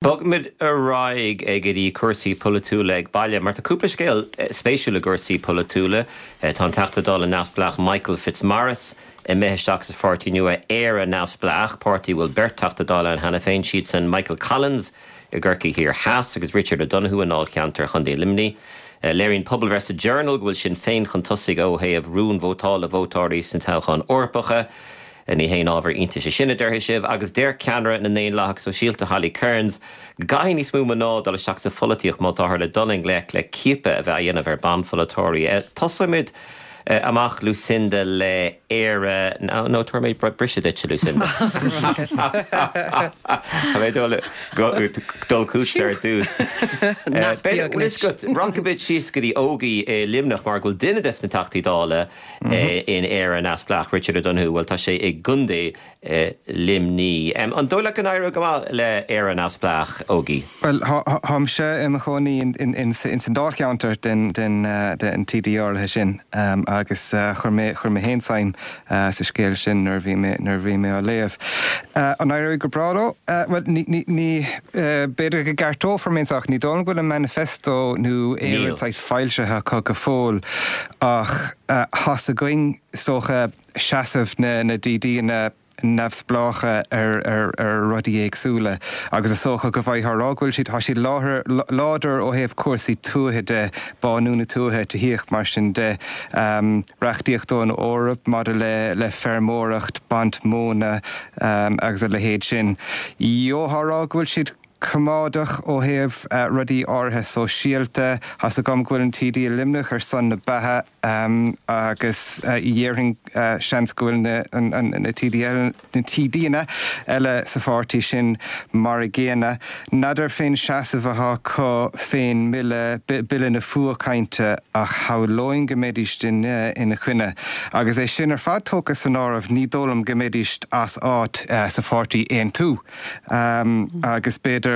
Bogfaimid ar aghaidh go dtí cúrsaí polaitiúla ag baile, mar tá cúpla scéal spéisiúil i gcúrsaí polaitiúla. Tá an Teachta Dála neamhspleách Michael Fitzmaurice imithe isteach sa pháirtí nua Éire Neamhspleách, páirtí a bhfuil beirt Teachta Dála ann cheana féin, siadsan Michael Collins i gCorcaigh Thiar Theas agus Richard O'Donoghue i ndáilcheantar Chontae Luimnigh. Léiríonn pobalbhreith sa Journal go bhfuil Sinn Féin chun tosaigh ó thaobh rún vótála vótóirí sna toghcháin Eorpacha. Ní haon ábhar iontais é sin, a déarfaidh sibh, agus deir ceannaire na nDaonlathach Sóisialta, Holly Cairns, go gcaithfidh níos mó mná dul isteach sa pholaitíocht má táthar le dul i ngleic le ciapadh a bheith á dhéanamh ar banpholaiteoirí. Tosóimid amach, Lucinda, le Éire, nó tabharfaidh mé briseadh duit, a Lucinda. Tá mé ag dul chugatsa ar dtús. Rachaimid síos go dtí Ógie i Luimneach mar go bhfuil duine des na Teachtaí Dála in Éire Neamhspleách, Richard O'Donoghue, bhuel tá sé i gContae Luimnigh. An dóigh leat go n-éireoidh go maith le Éire Neamhspleách, Ógie? Bhuel, táimse i mo chónaí ins an dáilcheantar den TD áirithe sin agus chuir mé chuir mé féin suim sa scéal sin nuair a bhí mé nuair a bhí mé á léamh. An éireoidh go breá leo? Bhuel, ní ní ní b'fhéidir go gceartófar mé anseo ach ní dóigh liom go bhfuil an manifesto nó aon rud saghas foilsithe acu go fóill. Ach tá's againn, is dócha, seasamh na DDanna neamhspleácha ar rudaí éagsúla agus is dócha go bhfaightheá a rá go bhfuil siad, tá siad láidir ó thaobh cúrsaí tuaithe de, bánú na tuaithe, tithíocht, mar sin de, reachtaíocht ón Eoraip maidir le feirmeoireacht, baint móna agus a leithéid sin. Gheofá a rá go bhfuil siad. coimeádach ó thaobh rudaí áirithe sóisialta. Tá's agam go bhfuil an TD i Luimneach ar son na beatha agus dhéarfainn seans go bhfuil na TD na TDanna eile sa pháirtí sin mar a gcéanna. N'fheadar fén seasamh atá acu fén mbille, Bille na Fuathchainte, ach shamhlóinn go mbeidís ina choinne. Agus é sin ar fad tógtha san áireamh ní dóigh liom go mbeidís as áit sa pháirtí Aontú. Agus b'fhéidir,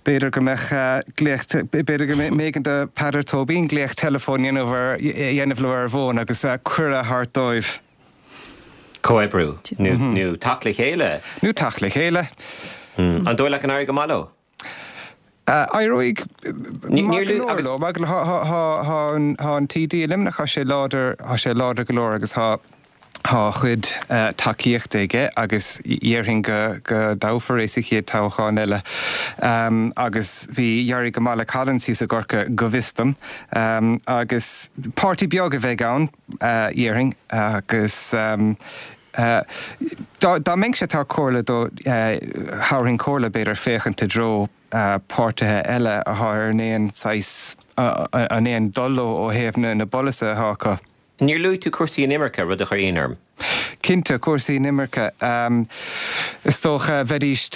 b'fhéidir go mbeadh glaoch, b'fhéidir go mb'éigean do Peadar Tóibín glaoch teileafóin a dhéanamh ar, a dhéanamh leo ar an bhfón agus cuireadh a thabhairt dóibh. Comhoibriú nó teacht le chéile. Nó teacht le chéile. An dóigh leat go n-éireoidh go maith leo? Éireoidh maith go leor leo. Maith go leor. Tá an TD i Luimneach, tá sé láidir, tá sé láidir go leor agus tá tá a chuid tacaíochta aige agus dhéarfainn go go dtoghfar é sa chéad toghchán eile. Agus bhí, d'éirigh go maith le Collins thíos i gCorcaigh go bhfios dom. Agus páirtí beag a bheidh ann, dhéarfainn, agus Dá mbeinnse ag tabhairt comhairle dó, thabharfainn comhairle, b'fhéidir, féachaint i dtreo páirtithe eile atá ar an aon saghas, an aon dul leo ó thaobh na bpolasaithe atá acu. Níor luaigh tú cúrsaí inimirce, rud a chuir ionadh orm. Cinnte, cúrsaí inimirce. Is dócha, bheidís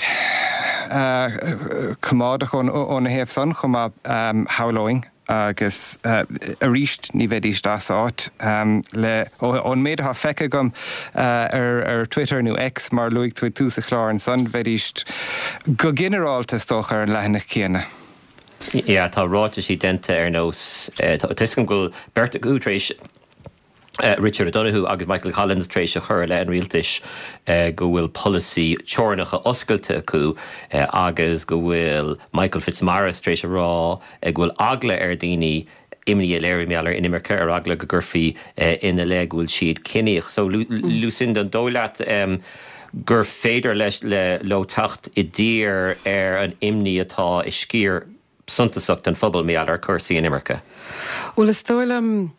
coimeádach óna thaobh san chomh maith, shamhlóinn. Agus arís, ní bheidís as áit le, ón méid atá feicthe agam ar Twitter nó X, mar a luaigh tú ag tús an chláir ansan, bheidís go ginearálta, is dócha, ar an leathanach céanna. Yeah, tá ráitisí déanta ar nós, tá 'fhios agam go bhfuil beirt acu tar éis, Richard O'Donoghue agus Michael Collins tar éis a chur i leith an rialtais go bhfuil polasaí teorainneacha oscailte acu agus go bhfuil Michael Fitzmaurice tar éis a rá go bhfuil eagla ar dhaoine imní a léiriú mar gheall ar inimirce ar eagla go gcuirfí ina leith go bhfuil siad ciníoch. So Lucinda, an dóigh leat gur féidir leis leo teacht i dtír ar an imní atá i sciar suntasach den phobal mar gheall ar chúrsaí inimirce. Bhuel, is dóigh liom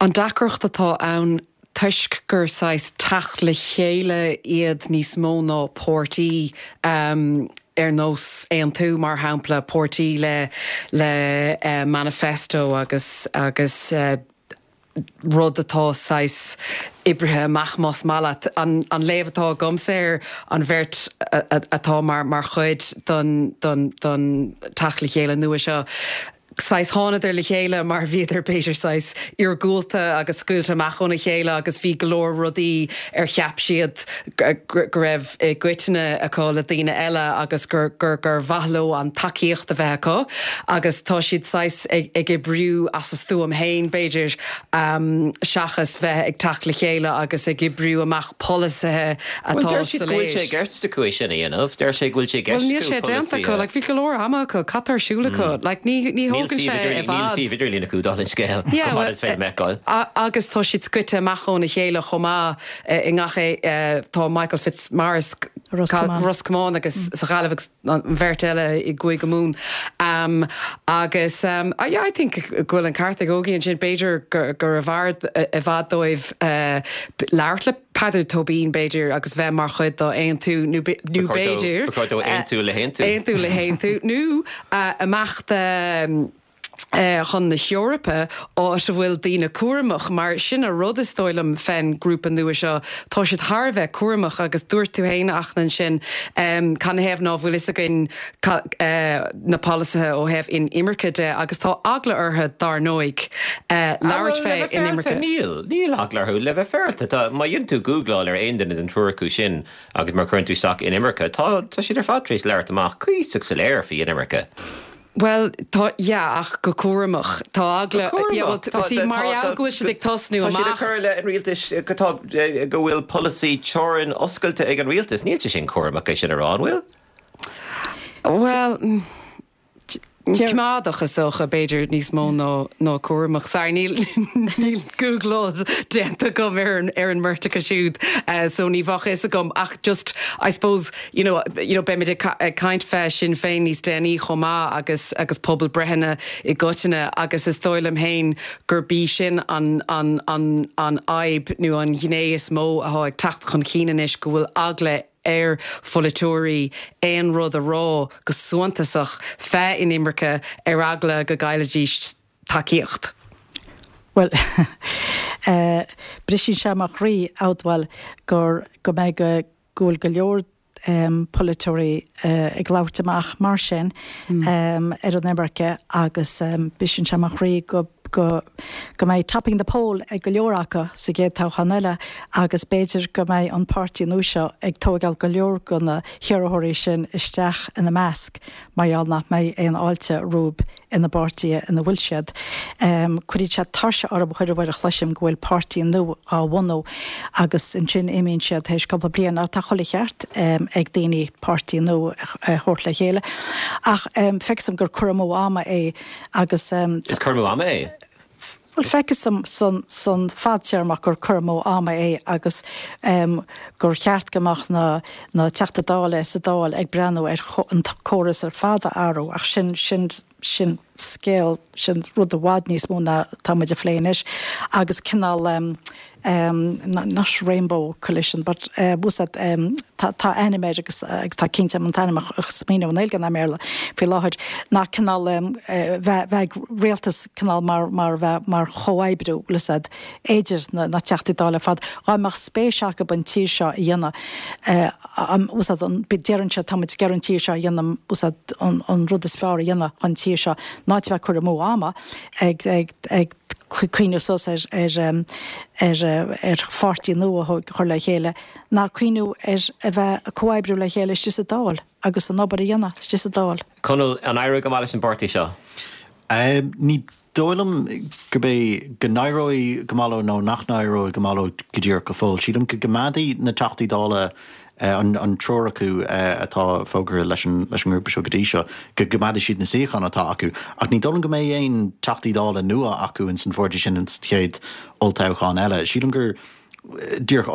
an deacracht atá ann toisc gur saghas teacht le chéile iad níos mó ná páirtí ar nós Aontú, mar shampla, páirtí le le manifesto agus agus rud atá saghas oibrithe amach, más maith leat. An léamh atá agamsa ar an bheirt atá mar chuid den teacht le chéile nua seo. Saghas thánadar le chéile mar bhíodar b'fhéidir saghas iargúlta agus scaoilte amach óna chéile agus bhí go leor rudaí ar cheap siad go raibh i gcoitinne acu le daoine eile agus gur gur gur mhaith leo an tacaíocht a bheith acu agus tá siad saghas ag ag oibriú as a stuaim féin b'fhéidir seachas bheith ag teacht le chéile agus ag oibriú amach polasaithe atá soiléir. Bhuel, deir siad go bhfuil sé i gceist acu é sin a dhéanamh. Deir sé go bhfuil sé i gceist acu polasaithe. Bhuel, níl sé déanta acu. Like, bhí go leor ama acu. Cad tá ar siúl acu? Like, ní, ní thógann sé i bhfad. Níl suíomh idirlín acu, dála an scéil, chomh fada is féidir liom a fheiceáil. Agus tá siad scoite amach óna chéile chomh maith i ngach é. Tá Michael Fitzmaurice, Ros Comáin agus sa Ghaillimh agus an bheirt eile i gCúige Mumhan. Agus, yeah, I think go bhfuil an ceart ag Ógie ansin, b'fhéidir gurbh fhearr i bhfad dóibh labhairt le Peadar Tóibín, b'fhéidir, agus bheith mar chuid d'Aontú nó b'fhéidir. Ba chóir dó aontú le hAontú. Aontú le hAontú nó imeacht chun na hEorpa, áit a bhfuil daoine cúramach, mar sin an rud is dóigh liom fén ngrúpa nua seo, tá siad thar a bheith cúramach agus dúirt tú fhéin, a Fhachtna, ansin, canathaobh ná fuil fhios againn na polasaithe ó thaobh inimirce de agus tá eagla orthu, dár ndóigh, labhairt fé inimirce. Níl, níl eagla orthu, le bheith féaráilte. Tá, má dhéanann tú gúgláil ar aon duine den triúr acu sin agus má chuireann tú isteach inimirce, tá, tá siad ar fad tar éis labhairt amach cuíosach soiléir faoi inimirce. Bhuel, tá, yeah, ach go cúramach. Tá eagla, Go cúramach? yeah, well, Tá, see, mar gheall go bhfuil siad ag tosnú amach. Tá siad ag cur i leith an rialtais go tá, go bhfuil polasaí teorann oscailte ag an rialtas. Níl sé sin cúramach é sin a rá, an bhfuil? Bhuel, coimeádach is dócha, b'fhéidir, níos mó ná, ná cúramach. Sorry, níl, níl gúgláil déanta agam ar an, ar an mbeirt acu siúd, so ní bheadh fhios agam ach just, I suppose, you know, you know, beimid ag ag caint fé Sinn Féin níos déanaí chomh maith agus agus pobalbreitheanna i gcoitinne agus is dóigh liom féin gurb í sin an an an an fhadhb nó an ghné is mó athá ag teacht chun cinn anois go bhfuil eagla ar pholaiteoirí aon rud a rá go suntasach fé inimirce ar eagla go gcaillfidís tacaíocht. Bhuel, briseann sé mo chroí a admháil gur go mbeidh go go bhfuil go leor polaiteoirí ag labhairt amach mar sin ar an imirce agus briseann sé mo chroí go go go mbeidh topping the poll ag go leor acu sa gcéad toghchán eile agus b'fhéidir go mbeidh an páirtí nua seo ag tóigeáil go leor de na hiarrthóirí sin isteach ina measc mar gheall nach mbeidh aon fháilte rompu ina bpáirtithe ina bhfuil siad. Cuireann sé tuirse orm chuile uair a chloisim go bhfuil páirtí nua á bhunú agus ansin imíonn siad théis cúpla bliain. Ach tá chuile cheart ag daoine páirtí nua a thabhairt le chéile. Ach feictear dom gur cur amú ama é agus. Is cur amú ama é? Bhuel, feictear dom san, san fadtéarmach gur cur amú ama é agus gur cheart go mbeadh na, na Teachtaí Dála sa Dáil ag breathnú ar an córas ar fad a athrú ach sin, sin, sin scéal, sin rud i bhfad níos mó ná tá muid a phlé anois agus cineál not rainbow coalition but úsáid tá tá ainm air agus agus tá cinnte an t-ainm a smaoineamh i nGaeilge ná i mBéarla faoi láthair ná cineál bheith bheith ag rialtas cineál mar mar bheith mar chomhoibriú bhfuil fhios a'd idir na na Teachtaí Dála ar fad dhá mbeadh spéis acu an tír seo a dhéanamh bhfuil fhios a'd an deireann siad tá muid ag iarraidh an tír seo a dhéanamh bhfuil fhios a'd an an rud is fearr a dhéanamh chun tír seo ná a bheith ag cur amú ama ag ag ag cuimhneamh suas ar ar pháirtí nua a chur le chéile ná cuimhneamh ar a bheith ag comhoibriú le chéile istigh sa Dáil agus an obair a dhéanamh istigh sa Dáil. Conall, an éireoidh go maith leis an bpáirtí seo? Ní dóigh liom gurb é go n-éireoidh go maith leo nó nach n-éireoidh go maith leo go díreach go fóill. Sílim go gcoimeádfaidh na Teachtaí Dála an triúr acu atá fógartha leis an ngrúpa seo go dtí seo, go gcoimeádfaidh siad na suíocháin atá acu. Ach ní dóigh liom go mbeidh aon Teachtaí Dála nua acu ins an pháirtí sin ins an chéad olltoghchán eile. Sílim gur díreach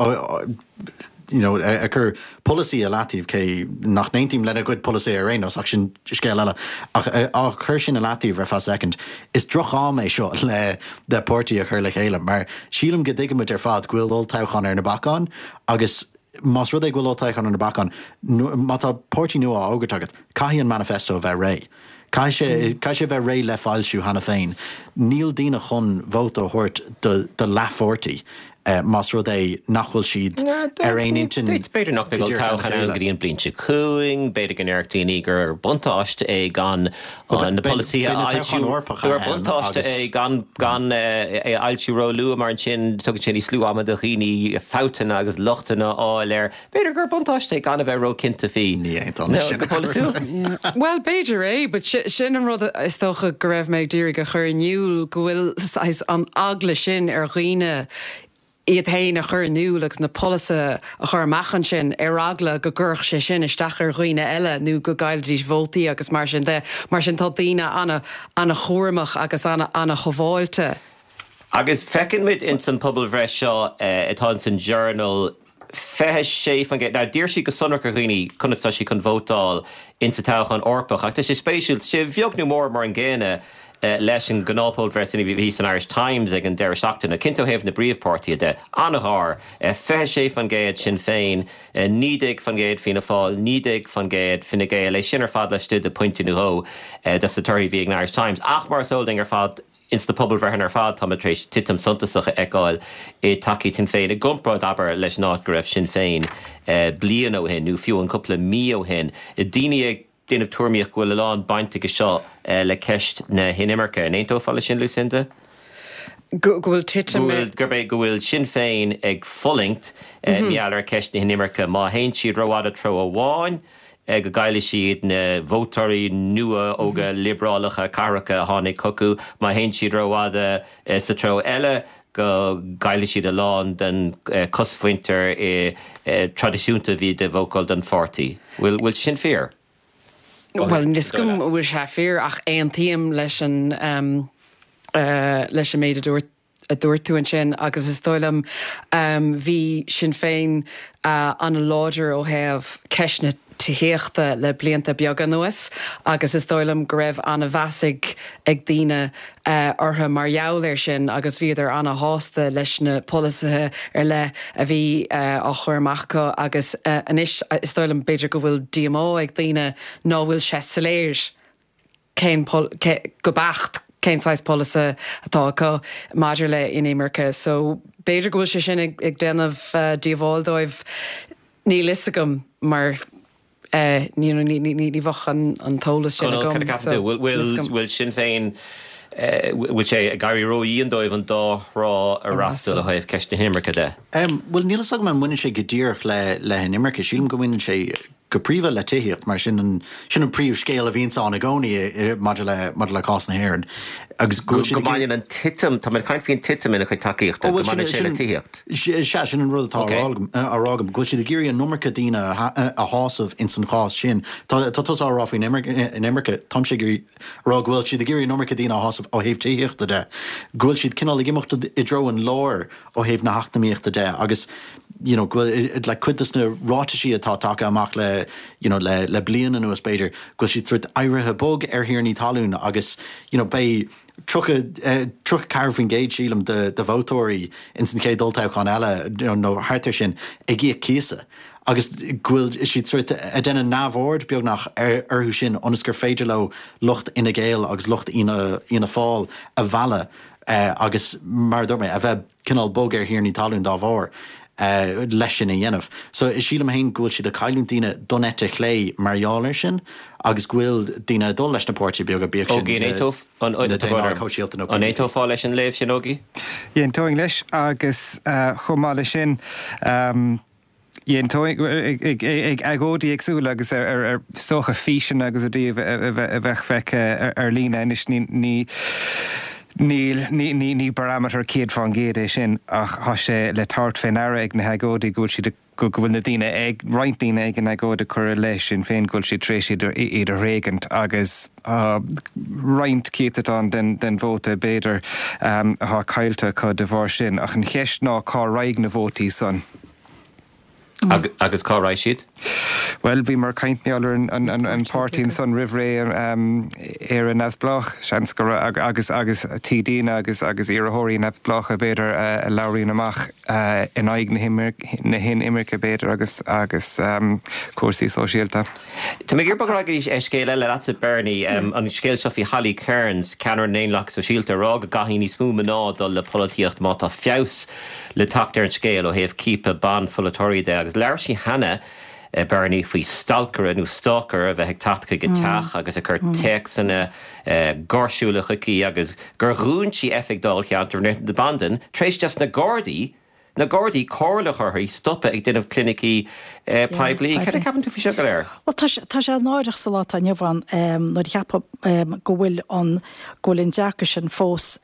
you know ag cur polasaí i leataobh, cé nach n-aontaím lena gcuid polasaí ar aon nós, ach sin scéal eile, ach á chur sin i leataobh ar feadh soicind, is droch-am é seo le le páirtí a chur le chéile mar sílim go dtuigimid ar fad go bhfuil olltoghchán ar na bacáin agus Más rud é go bhfuil olltoghchán ar na bacáin, má tá páirtí nua á fhógairt agat, caithfidh an manifesto a bheith réidh. Caithfidh sé, caithfidh sé a bheith réidh le foilsiú cheana féin. Níl daoine chun vóta a thabhairt do, do leathpháirtí. Más rud é nach bhfuil siad ar aon intinn B'fhéidir nach mbeidh olltoghchán ann go dtí an bliain seo chugainn, b'fhéidir go ndéarfadh daoine gur buntáiste é gan na polasaithe a fhoilsiú, gur buntáiste é gan gan é a fhoilsiú róluath mar ansin tugann sé níos lú ama do dhaoine fabhtanna agus lochtanna a fháil air. B'fhéidir gur buntáiste é gan a bheith róchinnte faoi. Ní aontóinn leis sin. Go polaitiúil. Bhuel, b'fhéidir é, but sin an rud is dócha go raibh mé ag iarraidh a chur in iúl, go bhfuil saghas an eagla sin ar dhaoine iad féin a chur in iúl agus na polasaithe a chur amach ansin ar eagla go gcuirfeadh sé sin isteach ar dhaoine eile nó go gcaillfidís vótaí agus mar sin de. Mar sin tá daoine ana-chúramach agus ana-shábháilte. Agus feiceann muid ins an pobalbhreith seo atá ins an Journal, 26%, now d'iarr siad go sonrach ar dhaoine conas tá siad chun vótáil ins an toghchán Eorpach ach tá sé spéisiúil, tá sé beag nó mór mar an gcéanna leis an ngnáthphobalbhreith sin a bhí san Irish Times ag an deireadh seachtaine, cinnte ó thaobh na bpríomhpháirtithe de, an-ghar, 26% Sinn Féin, 19% Fianna Fáil, 19% Fine Gael, é sin ar fad laistigh de phointe nó dhó dos na torthaí a bhí ag an Irish Times ach mar is eol dúinn ar fad, Ins na pobalbhreitheanna ar fad táimid tar éis titim suntasach a fheiceáil i dtacaíocht Shinn Féin i gcomparáid, abair, leis an áit go raibh Sinn Féin bliain ó shin nó fiú an cúpla mí ó shin. Daoine ag déanamh tuairimíocht go bhfuil a lán baint aige seo le ceist na hinimirce. An aontófá leis sin, Lucinda? Go bhfuil titim i. Gurb é go bhfuil Sinn Féin ag fulaingt mar gheall ar cheist na hinimirce. Má théann siad rófhada treo amháin, go gcaillfidh siad na vótóirí nua óga liobrálacha cathracha a tháinig chucu, má théann siad rófhada sa treo eile, go gcaillfidh siad a lán den chosmhuintir traidisiúnta a bhí ag vótáil don pháirtí. Bhfuil sé sin fíor? Bhuel, níl 'fhios agam an bhfuil sé fíor ach aontaím leis an leis an méid a dúirt a dúirt tú ansin agus is dóigh liom bhí Sinn Féin an-láidir ó thaobh ceist na tithíochta le blianta beaga anuas agus is dóigh liom go raibh an-mheas ag ag daoine orthu mar gheall air sin agus bhíodar an-shásta leis na polasaithe ar leith a bhí á chur amach acu agus anois is dóigh liom b'fhéidir go bhfuil díomá ag daoine ná bhfuil sé soiléir cén, go beacht cén saghas polasaí atá acu maidir le inimirce. So b'fhéidir go bhfuil sé sin ag déanamh díobháil dóibh, níl fhios agam mar you know ní bheadh an t-eolas sin agam. Cad a cheapann tú? Bhfuil Sinn Féin, bhfuil sé ag éirí ródhian dóibh an dá thrá a fhreastal ó thaobh ceist na hinimirce de? Bhuel níl fhios agam an mbaineann sé go díreach le hinimirce. Sílim go mbaineann sé go príomha le tithíocht, mar sin an, sin an príomhscéal a bhíonns ann i gcónaí maidir le, maidir le cás na hÉireann. Agus go bhfuil siad ag. Go mbaineann an titim, tá mé ag caint faoin titim ina chuid tacaíochta, go mbaineann sé le tithíocht. Sea, sin an rud atá á rá agam, á rá agam, go bhfuil siad ag iarraidh an iomarca daoine a shásamh ins an chás sin. Tá, tá tusa á rá faoin inimirce, táimse ag iarraidh a rá go bhfuil siad ag iarraidh an iomarca daoine a shásamh ó thaobh tithíochta de, go bhfuil siad cineál ag imeacht i dtreo an láir ó thaobh na heacnamaíochta de agus you know go bhfuil like cuid de na ráitisí atá tagtha amach le you know le le bliain anuas b'fhéidir go bhfuil siad sórt éirithe bog ar thiarnaí talún agus you know beidh 30 34% sílim de de vótóirí ins an chéad olltoghchán eile you know nó thart ar sin ag íoc cíosa agus go bhfuil siad sórt ag déanamh neamhaird beagnach ar orthu sin ionas gur féidir leo lucht Fhine Gael agus lucht Fhianna Fhianna Fáil a mhealladh agus mar a dúirt mé, a bheith cineál bog ar thiarnaí talún dá bharr leis sin a dhéanamh. So sílim féin go bhfuil siad ag cailliúint daoine don eite chlé mar gheall air sin agus go bhfuil daoine ag dul leis na páirtithe beaga, bíodh sin na Daonlathaigh Shóisialta nó PPP. An aontófá leis an léamh sin, Ógie? D'aontóinn leis agus chomh maith leis sin, D'aontóinn ag agóidí éagsúla agus ar is dócha físeanna agus rudaí a bheadh feicthe ar líne anois ní níl ní barometer 100% é sin ach tá sé le tabhairt fé ndeara ag na hagóidí go bhfuil siad go bhfuil na daoine ag roinnt daoine ag an agóid ag cur i leith Sinn Féin go bhfuil siad tar éis iad iad a thréigint agus tá roinnt céatadán den vóta b'fhéidir atá caillte acu de bharr sin ach an cheist ná cá raghaidh na vótaí san? Agus cá raghaidh siad? Bhuel, bhíomar ag caint mar gheall ar an páirtí ansan roimh ré, Éire Neamhspleách, seans go raibh, agus agus TDanna agus agus iarrthóirí neamhspleácha b'fhéidir a labhraíonn amach in aghaidh na hinimirce b'fhéidir agus agus cúrsaí sóisialta. Tá mé ag iarraidh bogadh ar aghaidh go dtí scéal eile leatsa Bernie, an scéal seo faoi Holly Cairns, ceannaire na nDaonlathach Sóisialta, ag rá go gcaithfidh níos mó mná dul le polaitíocht má tá feabhas le teacht ar an scéal ó thaobh ciapadh ban-pholaiteoirí de agus labhair sí cheana, Bernie, faoi stalcaire nó stalker a bheith ag teacht chuig a teach agus ag cur téacsanna gáirsiúla chuici agus gur dhún sí oifig dáilcheantair na Bandan tar éis dos na Gardaí na Gardaí comhairle a chur uirthi stopadh ag déanamh clinicí poiblí. Cad a cheapann tú faoi seo go léir? Bhuel tá sé náireach sa lá atá inniu ann nuair a cheapfá go bhfuil an go bhfuil an dearcadh sin fós,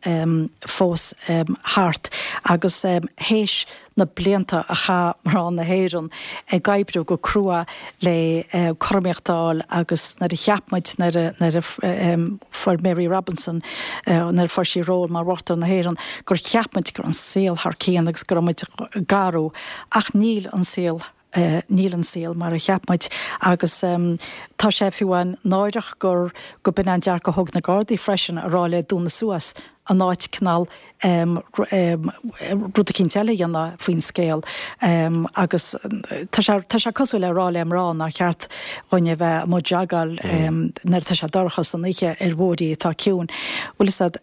fós thart agus théis na blianta a chaith mná na hÉireann ag oibriú go crua le cothromaíocht a fháil agus nuair a cheap muid, nuair a, nuair a fuair Mary Robinson, nuair a fuair sí ról mar Uachtarán na hÉireann, gur cheap muid go raibh an saol thar cionn agus go raibh muid ag athrú ach níl an saol Níl an saol mar a cheap muid agus tá sé fiú amháin náireach gur go b'in an dearcadh a thóg na Gardaí freisin a rá léi dúnadh suas in áit cineál rud eicínt eile a dhéanamh faoin scéal agus tá sé tá sé cosúil le rá le mná nár cheart dhúinn a bheith amuigh ag jogáil nuair atá sé dorcha san oíche ar bhóithrí atá ciúin. Bhfuil fhios a'd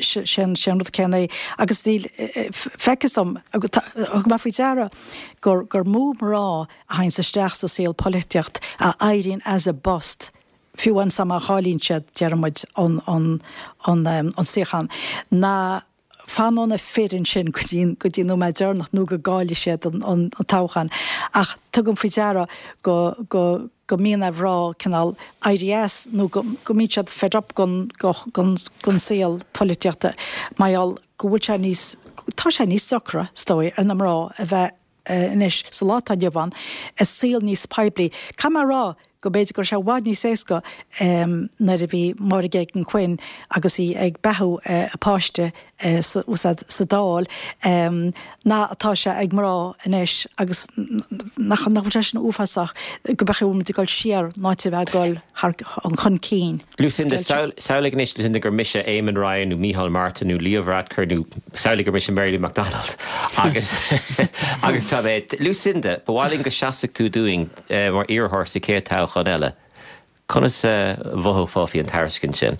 sé an rud céanna é agus níl feictear dom thug mé faoi deara gur gur mó mná a théanns isteach sa saol polaitíocht a éiríonn as a bpost, fiú amháin sa má chailleann siad, déarfaidh muid, an an an an suíochán, ná fanann na fir ansin go dtí go dtí an nóiméad deireanach nó go gcaillfidh siad an an toghchán. Ach tugaim faoi deara go go go mbíonn ar mhná cineál éirí as nó go go mbíonn siad fed up gon gon gon saol polaitíochta mar gheall go bhfuil sé níos, tá sé níos deacra, is dóigh, ar na mná a bheith anois, sa lá atá inniu ann, i saol níos poiblí. Caithfidh mé a rá go mb'fhéidir go raibh sé i bhfad níos éasca nuair a bhí Máire Geoghegan Quinn agus í ag beathú a páiste sa Dáil ná atá sé ag mná anois agus nach bhfuil sé sin uafásach go mbeadh muid ag dul siar in áit a bheith ag dul thar chun cinn. Lucinda, Samhlaigh anois, Lucinda, gur mise Eamon Ryan nó Micheál Martin nó Leo Varadkar nó samhlaigh gur mise Mary Lou McDonald agus agus tá mé, Lucinda, ba mhaith linn go seasfadh tú dúinn mar iarrthóir sa chéad toghchán eile. Conas a mhothófá faoi an tairiscint sin?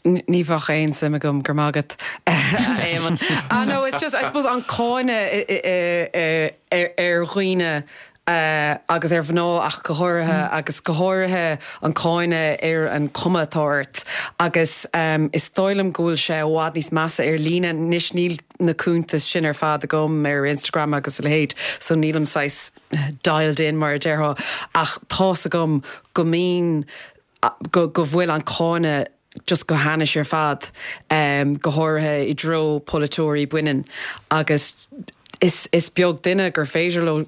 Ní bheadh aon suim agam, go raibh maith agat, a Éamoinn. Ah no, it's just, I suppose an cáineadh ar dhaoine agus ar mhná ach go háirithe, agus go háirithe an cáineadh ar an cuma atá ort. Agus is dóigh liom go bhfuil sé i bhfad níos measa ar líne. Anois níl na cuntais sin ar fad agam ar Instagram agus a leithéid, so nílim saghas dialed in mar a déarfá, ach tá's agam go mbíonn, go go bhfuil an cáineadh just go hainnis ar fad, go háirithe i dtreo polaiteoirí baineann agus is is beag duine gur féidir leo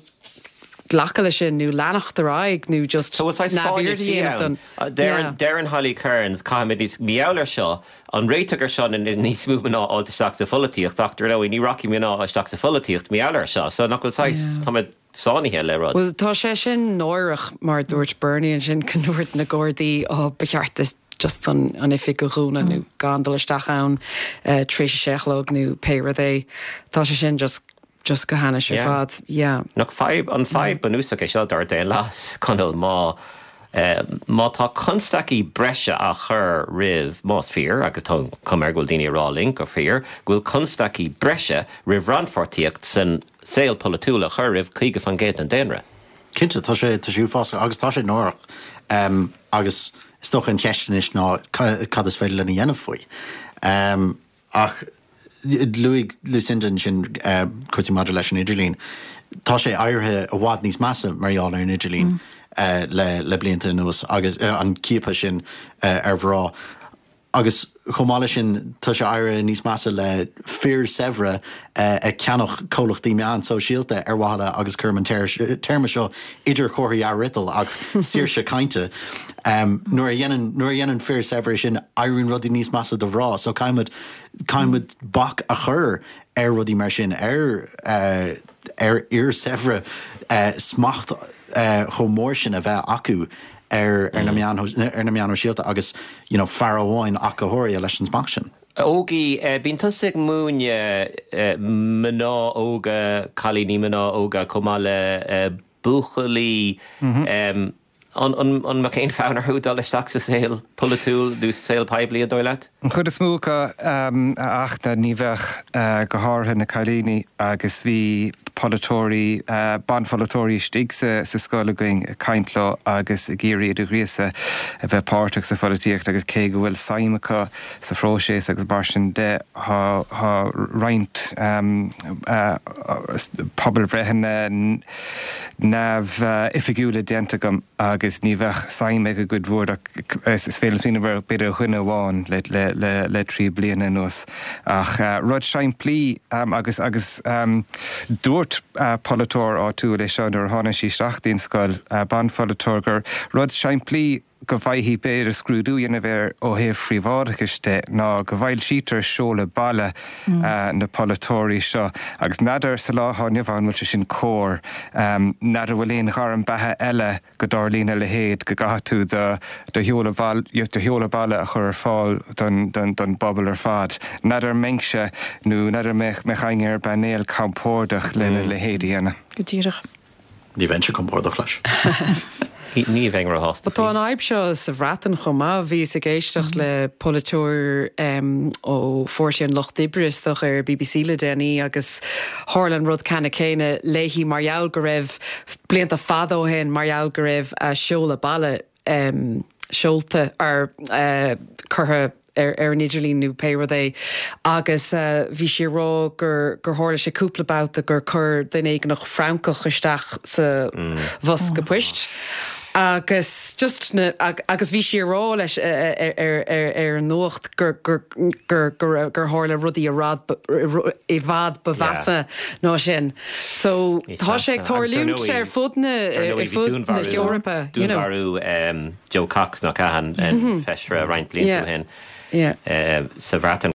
glacadh leis sin nó leanacht ar aghaidh nó just So bhfuil saghas fáinne neamhaird a fí dhéanamh ann? don, Deireann yeah. deireann Holly Cairns, caithfimid níos, mar gheall ar seo, an réiteach ar seo ná níos mó mná a fháilt isteach sa pholaitíocht ach dar ndóigh ní rachaidh mná isteach sa pholaitíocht mar gheall ar seo so nach bhfuil saghas, Yeah. táimid sáinnithe le rud. Bhuel, tá sé sin náireach, mar a dúirt Bernie ansin, go ndúirt na Gardaí, oh, ba cheart di just an an oifig a dhúnadh nó gan dul isteach ann tar éis a sé a chlog nó pé rud é. Tá sé sin just just go hainnis ar Yeah. fad. Yeah. Nach fadhb, an fadhb bunúsach é seo dár daonlathas, Conall, má má tá constaicí breise á chur roimh, más fíor, agus tá an chuma air go bhfuil daoine ag rá linn gur fíor, go bhfuil constaicí breise roimh rannpháirtíocht san saol polaitiúil a chur roimh 50% den daonra. Cinnte, tá sé, tá sé uafásach agus tá sé náireach. Agus is dócha an cheist anois ná cad is féidir linn a dhéanamh faoi. Ach luaigh Lucinda ansin cúrsaí maidir leis an idirlíon. Tá sé éirithe i bhfad níos measa mar gheall ar an idirlíon le blianta anuas agus an ciapadh sin ar mhná. Agus chomh maith leis sin, tá sé éirithe níos measa le fir saibhre ag ceannach comhlachtaí meán sóisialta ar mhaithe le, agus cuirim an téarma seo idir chomharthaí athfhriotail, ach saoirse cainte. Nuair a dhéanann, nuair a dhéanann fir saibhre sin, éiríonn rudaí níos measa do mhná. So caithfimid, caithfimid bac a chur ar rudaí mar sin, ar. ar fhir saibhre smacht chomh mór sin a bheith acu ar na meáin ar na meáin shóisialta agus you know fear amháin ach go háirithe leis an smacht sin. Ógie, bíonn tusa ag múineadh mná óga, cailíní mná óga chomh maith le buachaillí. An mbeadh aon fhonn orthu dul isteach sa saol polaitiúil nó sa saol poiblí, an dóigh leat? An chuid is mó acu, a Fhachtna, ní bheadh, go háirithe na cailíní agus bhí polaiteoirí, banpholaiteoirí istigh sa scoil againn ag caint leo agus ag iarraidh iad a ghríosadh a bheith páirteach sa pholaitíocht agus cé go bhfuil suim acu sa phróiseas agus mar sin de, tá roinnt pobalbhreitheanna neamhoifigiúla déanta agam agus ní bheadh suim ag an gcuid mhór ach is féidir liom smaoineamh ar b'fhéidir dhuine amháin le 3 bliana anuas. Ach rud simplí agus agus dúirt polaiteoir áitiúil é seo nuair a tháinig sí isteach dtí'n scoil, banpholaiteoir, gur rud simplí go bhfaighfí b'fhéidir scrúdú a dhéanamh air ó thaobh phríobháideachais de ná go bhfoilsítear seoladh baile na polaiteoirí seo agus n'fheadar sa lá atá inniu ann an bhfuil sé sin cóir. N'fheadar bhfuil aon ghairm beatha eile go dtarlaíonn a leithéid, go gcaithfidh tú do do sheoladh baile a chur ar fáil don don bpobal ar fad. N'fheadar an mbeinnse nó n'fheadar an mbeadh éinne ar an bpainéal compordach lena leithéid a dhéanamh. Go díreach. Ní bheinnse compordach leis. Ní bheinn róshásta faoi. Tá an fhadhb seo sa Bhreatain chomh maith. Bhíos ag éisteacht le polaiteoir ó Pháirtí an Lucht Oibre, is dócha, ar BBC le déanaí agus tharla an rud ceannann céanna léi mar gheall go raibh, blianta fada ó shin, mar gheall go raibh a seoladh baile seolta ar curtha ar an idirlíon nó pé rud é agus bhí sí ag rá gur gur tharla sé cúpla babhta gur chuir duine éigineach francach isteach sa bhosca poist agus just na agus bhí sí ag rá leis ar ar ar an nuacht gur gur gur gur gur tharla rudaí i rad i bhfad ba mheasa ná sin. So tá sé ag tarlúint ar fud na ar fud na hEorpa, you know. Dúnmharú Jo Cox nach ea, an feisire roinnt blianta ó shin sa Bhreatain.